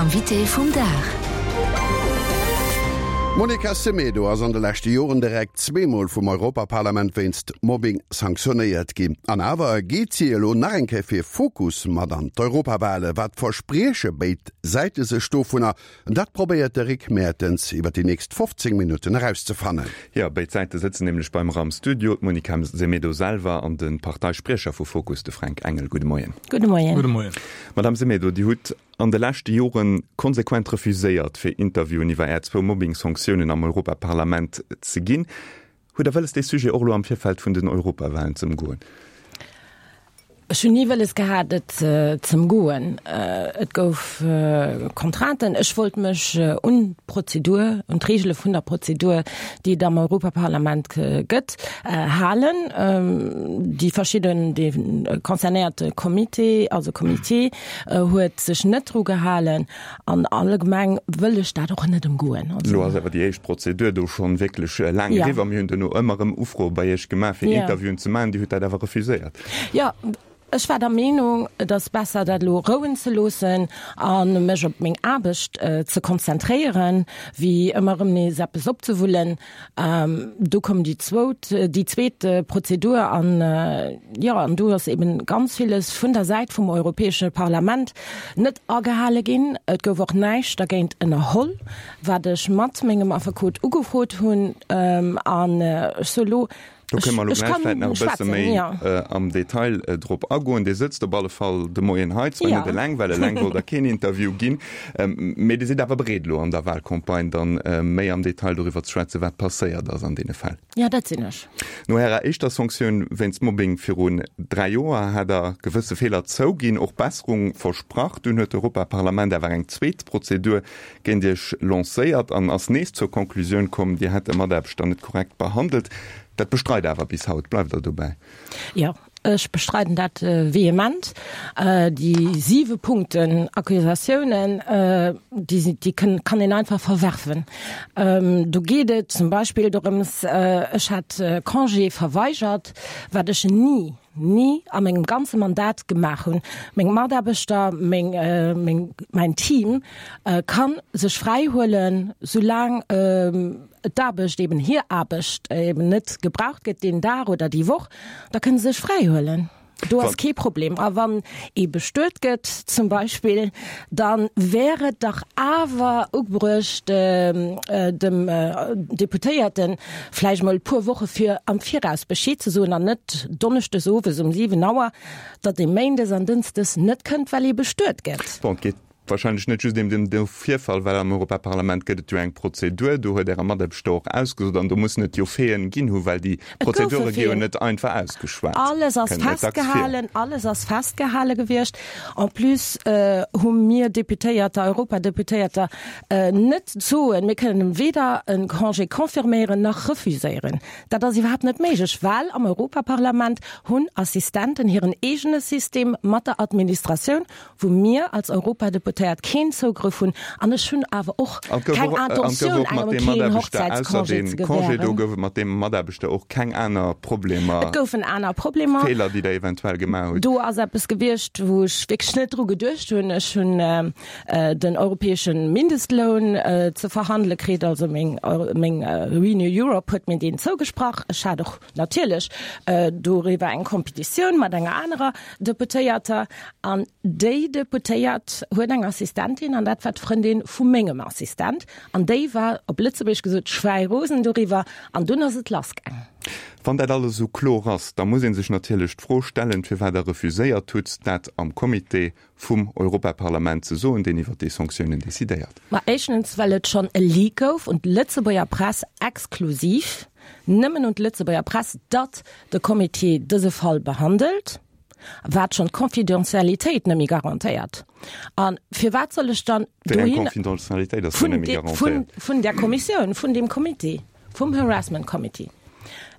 Invité vum Dag. D'Monica Semedo ass an de leschte Joren direkt zweemol vum Europaparlament wéinst Mobbing sanktionéiert ginn. An awer geet si elo nach eng Kéier fir Fokus mat an d'Europawale. Wat versprieche béid Säite sech dovunner? Dat probéiert de Rick Mertens iwwer déi nächst 15 Minutten erauszefannen. Jo, béid Säite sëtzen nämlech beim ram Studio, d'Monica Semedo selwer an de Parteispriecher vu Fokus, de Fränk Engel. Gudde Moien. Gudde Moien. Gudde Moien. Madame Semedo, Dir hutt an de leschte Jore konsequent refuséiert, fir Interviewen iwwer Är zwou Mobbing-Sanktiounen am Europaparlament ze ginn. Hutt Der wëlles, dee Sujet och elo am Virfeld vun den Europawahlen ze ëmgoen? Ech hunn ni wëlles gehat, et z'ëmgoen. Et gouf Contrainten. Ech wollt mech un d'Prozedur, un d'Reegele vun der Prozedur, déi et am Europaparlament gëtt, halen. Déi verschidden, dee concernéierte Comité, also Comité, huet sech net dru gehalen. An allgemeng wëll ech dat och net ëmgoen. Elo ass awer déi éischt Prozedur do schonn wierklech laang eriwwer. Mir hunn duerno ëmmer erëm Ufroe bei Iech gemaach, fir Interviewen ze maachen. Dir hutt dat awer refuséiert. Jo, ech war der Meenung, et ass besser, dat elo rouen ze loossen a mech op meng Aarbecht ze konzentréieren, wéi ëmmer erëm nees eppes opzewullen. Do koum déi zwout, déi zweet Prozedur an, jo, an do ass eben ganz villes vun der Säit vum Europäesche Parlament net agehale ginn. Et gouf och näischt dergéint ënnerholl, wat ech mat mengem Affekot ugefrot hunn. An ech soe lo, Do kënne mer elo gläich vläicht nach e bësse méi am Detail drop agoen. Dir sëtzt op alle Fall de Moien hei, zwar net eleng, well eleng wollt Der keen Interview ginn, mee Dir sidd awer bereet elo an der Wahlcampagne dann méi am Detail doriwwer ze schwätzen, wat passéiert ass an deene Fäll. Jo, dat sinn ech. No Ärer éischter Sanktioun wéinst Mobbing virun 3 Joer hat Der gewësse Feeler zouginn, och Besserung versprach. Dunn huet d'Europaparlament awer eng zweet Prozedur géint Iech lancéiert an ass nees zur Conclusioun komm, Dir hätt e Mataarbechter net korrekt behandelt. Dat bestreit Der awer bis haut. Bleift Der dobäi? Jo, ech bestreiden dat vehement. Déi siwe Punkten Accusatiounen, déi déi kann een einfach verwerfen. Do geet et zum Beispill dorëms, ech hätt Congé verweigert, wat ech ni, ni a mengem ganze Mandat gemaach hunn. Meng Mataarbechter, meng, meng, mäin Team ka sech fräi huelen, soulaang d'Aarbecht eben, hir Aarbecht eben net gebraucht gëtt deen Dag oder déi Woch, da kënne se sech fräi huelen. Do ass kee Problem. A wann ee bestuet gëtt zum Beispill, da wär et dach awer ugebruecht, dem Deputéierten vläicht mol e puer Woche fir am Viraus Bescheed ze soen an net donneschdes owes um 7 Auer, datt ee méindes an dënschdes net kënnt, well ee bestuet gëtt. Bon, et geet wahrscheinlech net just ém den Virfall, well am Europaparlament gëtt et jo eng Prozedur, do huet Äre Mataarbechter och ausgesot an do mussen et jo Faiten ginn hu, well déi Prozedure gi jo net einfach ausgeschwat. Alles ass festgehalen, alles ass festgehale gewiescht. En plus hu mir Deputéierter, Europadeputéierter, Net soen, mir kënnen weder e Congé confirméieren nach refuséieren. Dat ass iwwerhaapt net méiglech, well am Europaparlament hunn Assistenten hiren eegene System mat der Administratioun, wou mir als Europadeputéiert keen Zougrëff hunn. An ech hunn awer och keng Intentioun, engem keen Hochzäitscongé ze gewähren. Do gouf et mat deem Mataarbechter och keng aner Problemer? Et goufen aner Problemer. Feeler, déi Der eventuell gemaach hutt? Do ass eppes gewiescht, wou ech wierklech net dru geduecht hunn. Ech hunn den europäesche Mindestloun ze verhandele kritt. Also meng meng Renew Europe huet mir deen zougesprach. Ech hat och natierlech doriwwer eng Competitioun mat enger anerer Deputéierter an déi Deputéiert huet eng Assistentin an dat war d'Frëndin vu mengem Assistent an déi war op Lëtzebuergesch gesot schwäirosen doriwwer an dunn ass et lassgaang. Wann dat alles esou kloer ass, da muss ee sech natierlech d'Fro stellen, firwat Der refuséiert hutt, dat am Comité vum Europaparlament ze soen, deen iwwer déi Sanktiounen decidéiert. Ma éischtens, well et schonn e Leak gouf un d'Lëtzebuerger Press, exklusiv nëmmen un d'Lëtzebuerger Press, datt de Comité dëse Fall behandelt, wat schonn d'Confidentialitéit net méi garantéiert. A firwat soll ech dann Wéi eng Confidentialitéit ass do net méi garantéiert? Vun där Kommissioun, vun deem Comité, vum Harassment Committee.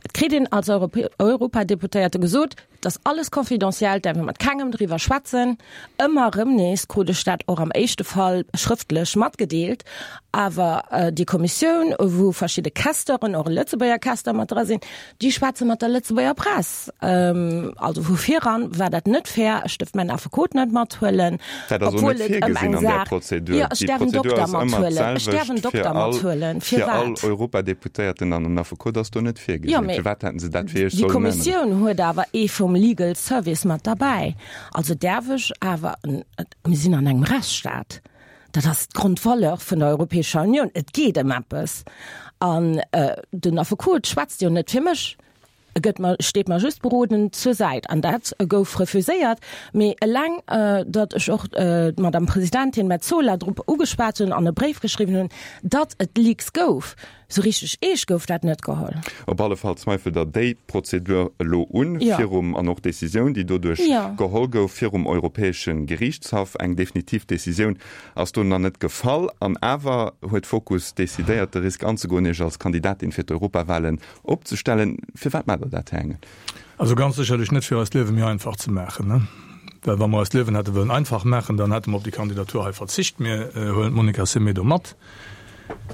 Et kritt een als Europadeputéierte gesot, Et ass alles confidentiel, et däerf ee mat kengem driwwer schwätzen. Ëmmer erëm nees krut ech dat och am éischte Fall schrëftlech matgedeelt. Awer déi Kommissioun, wou verschidde Questeuren, och e Lëtzebuerger Questeur mat dra sinn, déi schwätze mat der Lëtzebuerger Press. Also vu viran war dat net fair. Ech duerft mäin Affekot net mathuelen, Dat ass och obwuel net et ëm virgesinn eng an där Saach, Prozedur. jo, ech Déi däerf en Prozedur Dokter ass ëmmer mathuelen. Ech däerf en d'selwecht fir Dokter all mathuelen. fir all Firwat? Europadeputéierten an en Affekot ass do net Jo, virgesinn. mee Firwat hätten se dat fir Iech déi sollen änneren? Kommissioun huet awer ee vum Legal Service mat derbäi. Also däerf ech awer, mir sinn an engem Rechtsstaat, dat ass d'Grondvaleur vun der Europäescher Unioun, et geet ëm eppes. An den Affekot schwätzt jo net fir mech, e gëtt mer, steet mer just berodend zur Säit. An dat gouf refuséiert. Mee eleng, datt ech och d'Madame Presidentin Metsola drop ugeschwat hunn an e Bréif geschriwwen hunn, datt et Leaks gouf, Sou richteg eescht gouf dat net geholl. Op alle Fall zweifelt Der déi Prozedur elo un, virum, an och d'Decisioun, déi doduerch geholl gouf, virum Europäesche Geriichtshaff. Eng definitiv Decisioun ass do nach net gefall. An awer huet Fokus decidéiert, de Risk anzegoen, Iech als Kandidatin fir d'Europawahlen opzestellen. Firwat maacht Der dat, Här Engel? Also ganz sécherlech net, fir eist Liewe méi einfach ze maachen. Well wa mer eist Liewen hätte wëllen einfach maachen, dann hätte mer op déi Kandidatur hei verzicht. Mir huelen d'Monica Semedo mat.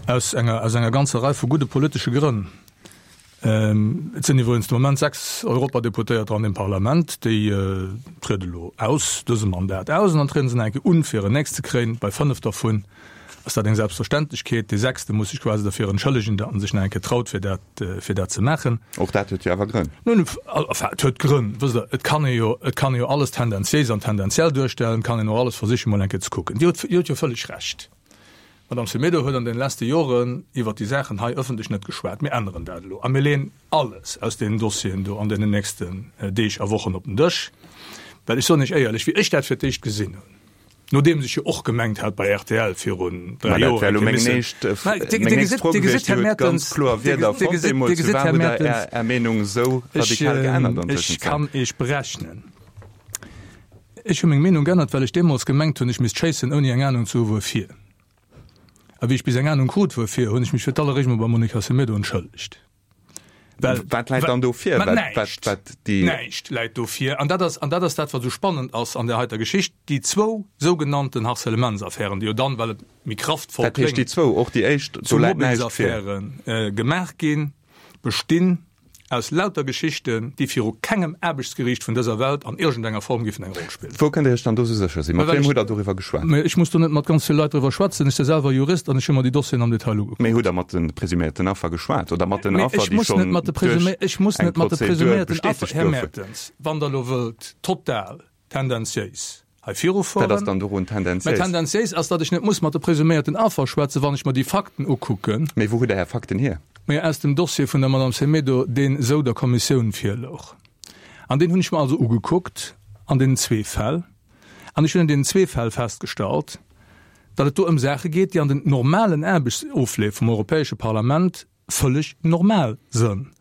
Aus enger, aus enger ganzer Rei vu gudde politesche Grënn. Et sinn iwwregens de Moment 6 Europadeputéierter an deem Parlament, déi triede elo aus dësem Mandat aus an dann triede se nach eng Kéier un, fir en nächst ze kréien. Bei 5 dervun ass dat eng Selbstverständlechkeet. Dee sechste muss sech quasi derfir entschëllegen, datt en sech nach eng Kéier traut, fir dat, fir dat ze maachen. Och dat huet jo awer Grënn. Nun, enfin, et huet Grënn. Wësst Der, et kann ee jo, et kann ee jo alles tendenziéis an tendenziell duerstellen, et kann een och alles versichen, mol eng Kéier ze kucken. Dir hutt, Dir hutt jo vëlleg Recht. D'Madame Semedo huet an den leschte Joren iwwert déi Saachen hei ëffentlech net geschwat. Mir änneren dat elo a mir leeën alles aus deenen Dossieren do an deenen nächsten Deeg a Wochen op den Dësch. Well ech soen Iech éierlech, wéi ech dat fir d'éischt gesinn hunn, nodeems ech jo och gemengt hat bei rtl virun 3 Joer eng Kéier missen, Dir gesitt, Här Mertens, Dir gesitt, Här Mertens, ech kann Iech berechnen, Ech hu meng Meenung g'ännert, well ech deemools gemengt hunn, ech misst schéissen, ouni eng Anung ze hu wuerfir. A wéi ech bis eng Anung krut wuerfir, hunn ech mech fir d'alleréischt mol beim Monica Semedo entschëllegt. Well, Wat läit dann do vir? Ma näischt! Näischt läit do vir. An dat ass, an dat ass dat, wat esou spannend ass an där heiter Geschicht, déi zwou sougenannten Harcèlementsaffären, déi jo dann, well et méi kraftvoll Dat heescht, déi kléngt, zwou, och déi éischt, zu do läit näischt vir? Mobbingsaffäre gemaach ginn, bestinn aus lauter Geschichten, déi viru kengem Aarbechtsgeriicht vun dëser Welt an iergendenger Form giffen eng Roll spillen. Wou kënnt Dir Iech dann do sou sécher sinn? Mat Well wiem ech, hutt Der doriwwer geschwat? Mä ech muss do net mat ganz vill Leit driwwer schwätzen. Ech si selwer Jurist an ech hu mer déi Dossieren am Detail ugekuckt. Mee hutt Der mat de presuméierten Affer geschwat oder mat den Mee Affer, ech déi muss net schonn mat de duerch presumé, ech muss eng net mat de Prozedur presuméierten Affer, bestätegt Här goufen? Mertens, wann Der elo wëllt total tendenziéis hei Wat ass virufueren. dann dorun Mä tendenziéis? tendenziéis ass, datt ech net muss mat de presuméierten Affer schwätzen, wann ech mer déi Fakten ukucken. Mee wou hutt Der Är Fakten hier? Mä aus dem Dossier vun der Madame Semedo, deen esou der Kommissioun virlouch. An deen hunn ech mer also ugekuckt an deenen zwee Fäll. An ech hunn an deenen zwee Fäll festgestallt, datt et do ëm Saache geet, déi an den normalen Aarbechtsofleef vum Europäesche Parlament vëlleg normal sënn,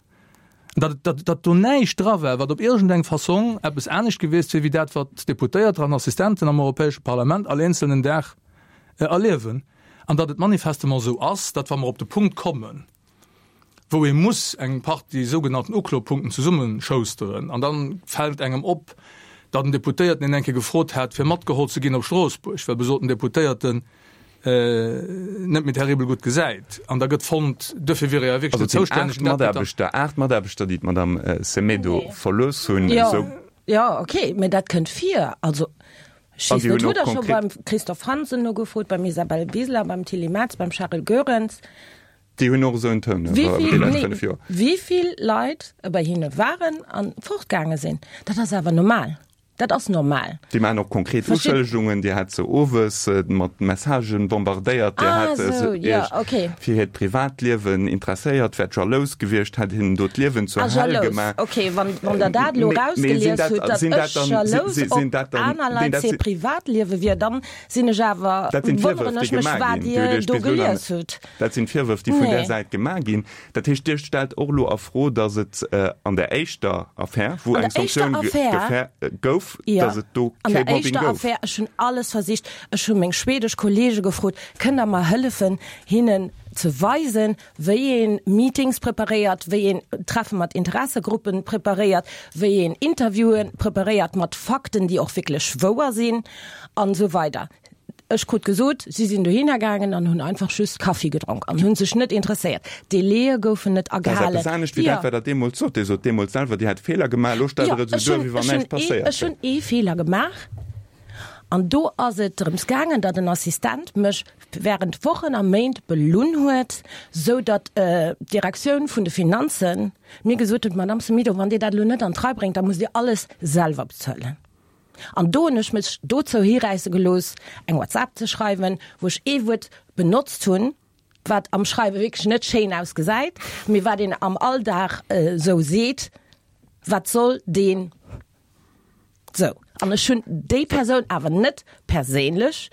datt, datt, datt do näischt dra war, wat op iergendeng Fassong eppes anescht gewiesst wier wéi dat, wat d'Deputéierter an Assistenten am Europäesche Parlament all eenzelnen Dag erliewen, an datt et manifestement esou ass, datt wa mer op de Punkt kommen, wou ee muss eng Partie sougenannten Uklopunkten zesummeschousteren, an da fält engem op, datt en Deputéierten een eng Kéier gefrot hat, fir matgeholl ze ginn op Stroossbuerg, well besoten Deputéierten net méi terribel gutt gesäit an da gëtt fonnt, duerfir wier e ja wierklech Also net et sinn zoustänneg. 8 Dat gëtt dann. Mataarbechter, 8 Mataarbechter, déi d'Madame Semedo Nee. verlooss hunn, Jo, esou. jo, okay, mä dat kënnt vir. Also, ech An weess déi net, hunn hutt och Der scho konkret. beim Christophe Hansen nogefrot, beim Isabel Wiseler, beim Tilly Metz, beim Charel Goerens? Déi hunn och esou en Toun Wéi iwwer déi vill, lescht nee, 5 Joer. wéi vill Leit bei hinne waren a fortgaange sinn, dat ass awer normal. Dat ass normal. Déi maachen och konkret Uschëllegungen. Dir hat se owes mat Messagen bombardéiert. Dir hat se Iech fir hiert Privatliewen interesséiert, wäert jalous gewiescht, hätt hinnen do d'Liewen zur Hell gemaach. Ah, jalous, okay. Wann Der dat elo erausgelies hutt, datt ech jalous op aner Leit hir Privatliewe wier, dann sinn ech awer, wonneren ech mech, wat Dir do gelies hutt. Dat sinn d'Virwërf, déi vun där Säit gemaach ginn. Dat heescht, Dir stellt och elo a Fro, datt et an der éischter Affär, wou eng Sanktioun gouf, datt et do kee Mobbing gouf? An der éischter Affär, ech hunn alles versicht, ech hu meng schwedesch Kollege gefrot, kënnt Der mer hëllefen, hinnen. ze weisen, wéi ee Meetings preparéiert, wéi een Treffe mat Interessegruppen preparéiert, wéi een Interviewen preparéiert mat Fakten, déi och wierklech wouer sinn an esou weider. Ech krut gesot, si sinn dohinner gaangen an hunn einfach just Kaffi gedronk an hunn sech net interesséiert. D'Délaië goufen net Dat ass agehalen. eppes anescht wéi Jo. dat, wat Der deemools sot. Dir sot deemools selwer, Dir hätt Feeler gemaach. Elo stellt Jo, Der et esou ech duer, hunn, wéi wann ech hunn näischt ee, passéiert ech wär. hunn ee Feeler gemaach an do ass et drëms gaangen, datt en Assistent mech während Wochen a Méint belunn huet, sou datt d'Direktioun vun de Finanzen mir gesot huet, Madame Semedo, wann Dir dat elo net an d'Rei bréngt, da musst Dir alles selwer bezuelen. An do hunn ech mech dozou hiräisse gelooss, eng WhatsApp ze schreiwen, wou ech ee Wuert benotzt hunn, wat am Schreiwe wierklech net schéin ausgesäit, mee wat een am Alldag esou seet, Wat soll deen? Sou, an ech hunn déi Persoun awer net perséinlech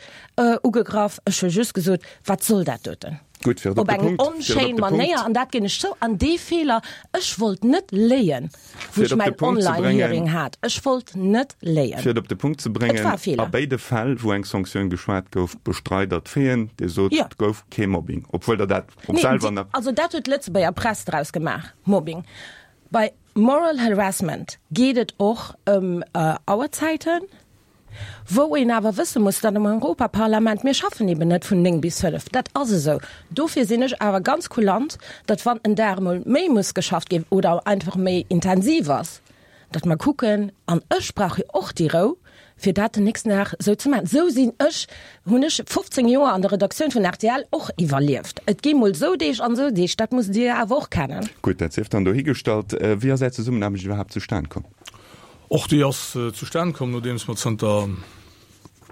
ugegraff, ech hu just gesot, wat soll dat doten? Gutt, fir et op Op de eng Punkt, fir et op onschéin de Punkt, Manéier, an dat ginn ech zou. An dee Feeler, ech wollt net léien, wou fir ech et op de mäin Punkt ze bréngen, Online-Hearing hat. Ech wollt net léien. fir et op de Punkt ze Et war bréngen, e a Feeler. béide Fäll, wou eng Sanktioun geschwat gouf, bestreit Der d'Faiten. Dir sot, Jo. et gouf kee Mobbing, obwuel Der dat och Nee, selwer déi, nach. also dat huet d'Lëtzebuerger Press draus gemaach, Mobbing. Bei Moral Harassment geet et och ëm Auerzäiten, wou een awer wësse muss, datt am Europaparlament, mir schaffen eben net vun 9 bis 5, dat ass esou. Dofir sinn ech awer ganz kulant, datt wann en Dag emol méi muss geschafft ginn oder einfach méi intensiv ass, datt mer kucken, an ech brauch jo och déi Rou, fir dat den nächsten Dag esou ze maachen. Esou sinn ech, hunn ech 15 Joer an der Redaktioun vun rtl och iwwerlieft. Et gi mol esou Deeg an esou Deeg, dat musst Dir awer och kennen. Gutt, dat sief dann dohigestallt. Wéi ass Är Zesummenaarbecht iwwerhaapt zustan komm? Och déi ass zustan komm, nodeems mer zënter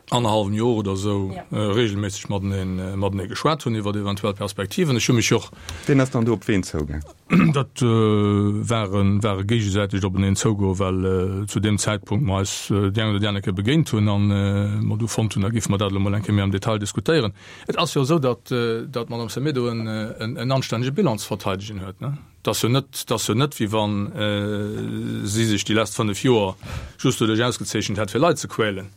annerhallwem Joer oder esou regelméisseg matenee matenee geschwat hunn iwwert eventuell Perspektiven. Ech hu mech och. Wien ass dann do op ween zougaang? Dat war e war e géigesäitegt openeen zougoen, well zu deem Zäitpunkt mer eis déi eng oder déi aner Kéier begéint hunn an mer du fonnt hunn, da géife mer dat elo mol eng Kéier méi am Detail diskutéieren. Et ass jo esou, datt datt d'Madame Semedo en en anstännege Bilan ze verteidegen huet, ne? Et ass jo net, et ass jo net, wéi wa si sech déi lescht 5 Joer just doduerch ausgezeechent hätt, fir Leit ze quälen.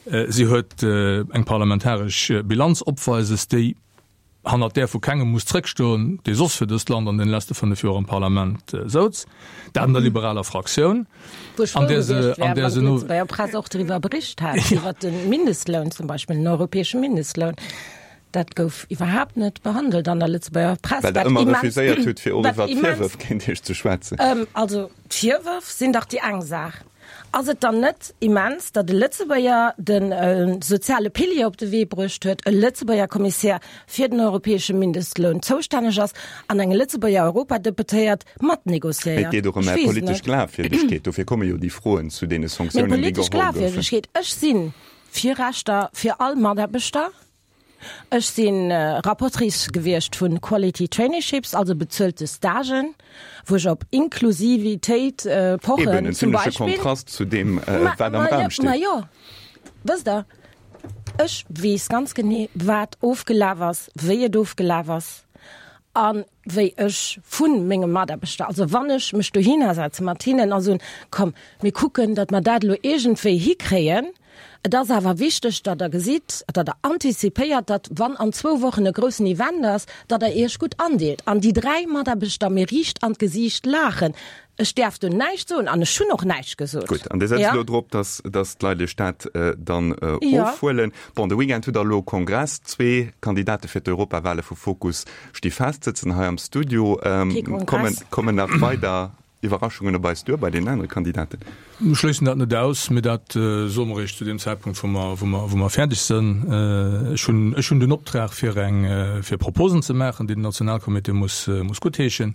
Si huet eng parlamentaresch Bilanz opweises, déi hannert där vu kengem muss zréckstoen, dee soss fir dëst Land an deene leschte 5 Joer am Parlament souz, dat an der liberaler Fraktioun, Wou ech frou an där se, gewiescht wär, an där wann se no. d'Lëtzebuerger Press och driwwer bericht hätt, iwwer de Mindestloun zum Beispill, den europäesche Mindestloun. Dat gouf iwwerhaapt net behandelt an der Lëtzebuerger Press. Well Der wat ëmmer immens, refuséiert hutt, fir och wat iwwer immens, d'Virwërf géint Iech ze schwätzen. Also d'Virwërf sinn dach déi eng Saach. Ass et dann net immens, datt e Lëtzebuerger de soziale Pilier op de Wee bruecht huet, e Lëtzebuerger Kommissär fir den europäesche Mindestloun zoustänneg ass an eng Lëtzebuerger Europadeputéiert mat Mee et négociéiert? geet och ëm Ech Är weess et politesch net. Glafwierdegkeet. Dofir komme jo déi Froen zu deene Meng Sanktiounen, déi politesch geholl goufen. Glafwierdegkeet, ech si fir Rechter fir all Mataarbechter. Ech si Rapportrice gewiescht vu Quality Traineeships, also bezuelte Stagen, wou ech op Inklusivitéit pochen Eben, en zum zimleche Beispill. Kontrast zu deem, wat am Raum steet. Ma jo, wësst Der, ech weess ganz genee, wat ofgelaf ass, wéi et ofgelaf ass a wéi ech vu menge Mataarbechter, also wann ech mech dohinner setze mat hinnen a soen, komm, mir kucken, datt mer dat elo iergendwéi hikréien, Et ass awer wichteg, datt Der gesitt, datt Der antizipéiert, datt, wann an zwou Wochen e groussen Event ass, datt Der Iech gutt andeelt. An déi 3 Mataarbechter mir riicht an d'Gesiicht laachen. Ech däerf do näischt soen an ech hunn och näischt gesot. Gutt, an Dir setzt elo drop, datt, datt d'Leit Iech dat dann ofhuelen. Bon, de Weekend hutt Der elo Kongress. Zwee Kandidate fir d'Europawale vu Fokus sti fest, sëtzen hei am Studio. Kee Kongress. Kommen nach weider Iwwerraschungen op eis duer bei deenen anere Kandidaten? Mir schléissen dat net aus, mee dat soe mer eréischt zu deem Zäitpunkt, wou mer, wou mer, wou mer fäerdeg sënn. Ech hunn, ech hunn den Optrag, fir eng, fir Proposen ze maachen, déi den Nationalcomité muss, muss guttheeschen.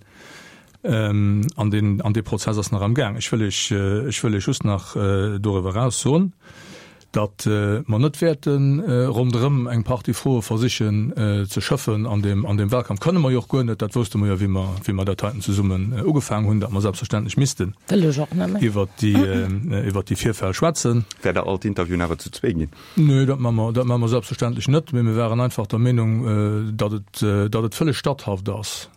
An deen, an dee Prozess ass nach am Gaang. Ech wëll Iech, ech wëll Iech just nach doriwwer eraus soen, datt mer net wäerte ronderëm eng Partie Froe versichen ze schëffen an deem an deem Wahlkampf. Kënne mer jo och guer net, dat wousste mer jo, wéi mer wéi mer dat heiten zesummen ugefaangen hunn, datt mer selbstverständlech missten Wëll ech och net méi. iwwert déi iwwert déi Virfäll schwätzen. Wäert Der all d'Interviewen awer zu zwee ginn? Nee, dat maache mer dat maache mer selbstverständlech net, mee mir waren einfach der Meenung, datt et datt et vëlleg statthaft ass,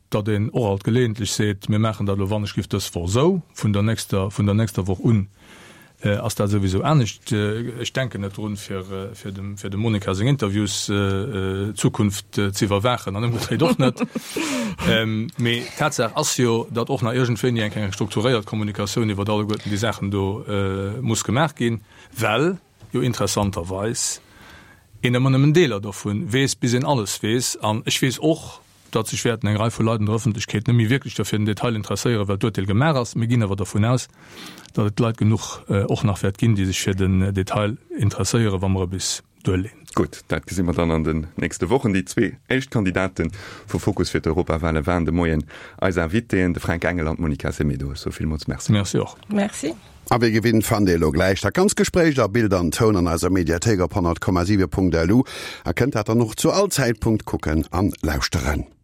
datt een och alt geleeëntlech seet, mir maachen dat elo wann ech giff dës Woch esou, vun der nächster, vun der nächster Woch un. Ass dat souwisou anescht. Ech denken net drun, fir fir dem fir dem Monica seng Interviews Zukunft ze iwwerwaachen an ëmgedréit och net. Mee Tatsaach ass jo, datt och nach iergendwéini eng eng strukturéiert Kommunikatioun iwwert alleguerten déi Saachen do muss gemaach ginn, well jo interessanterweis een ëmmer nëmmen Deeler dovun weess, bis een alles weess. An ech weess och, datt sech wäerten eng Rei vu Leit an der Ëffentlechkeet net méi wierklech derfir den Detail interesséieren, well d'Urteel gemaach ass. Mir ginn awer dervun aus, datt et Leit genuch och nach wäert ginn, déi sech fir den Detail interesséieren, wa mer e bis duerleen. Gutt, dat gesi mer dann an den nächste Wochen. Déi zwee éischt Kandidate vu Fokus fir d'Europawale waren de Moien eis Invitéen, de Fränk Engel an d'Monica Semedo. Ech soe villmools Merci. Merci och. Merci. A wéi gewinnt fannt Dir elo gläich dat ganz Gespréich a Bild an Toun an eiser Mediathéik op 100,7.lu a kënnt dat dann och zu all Zäitpunkt kucken an lauschteren.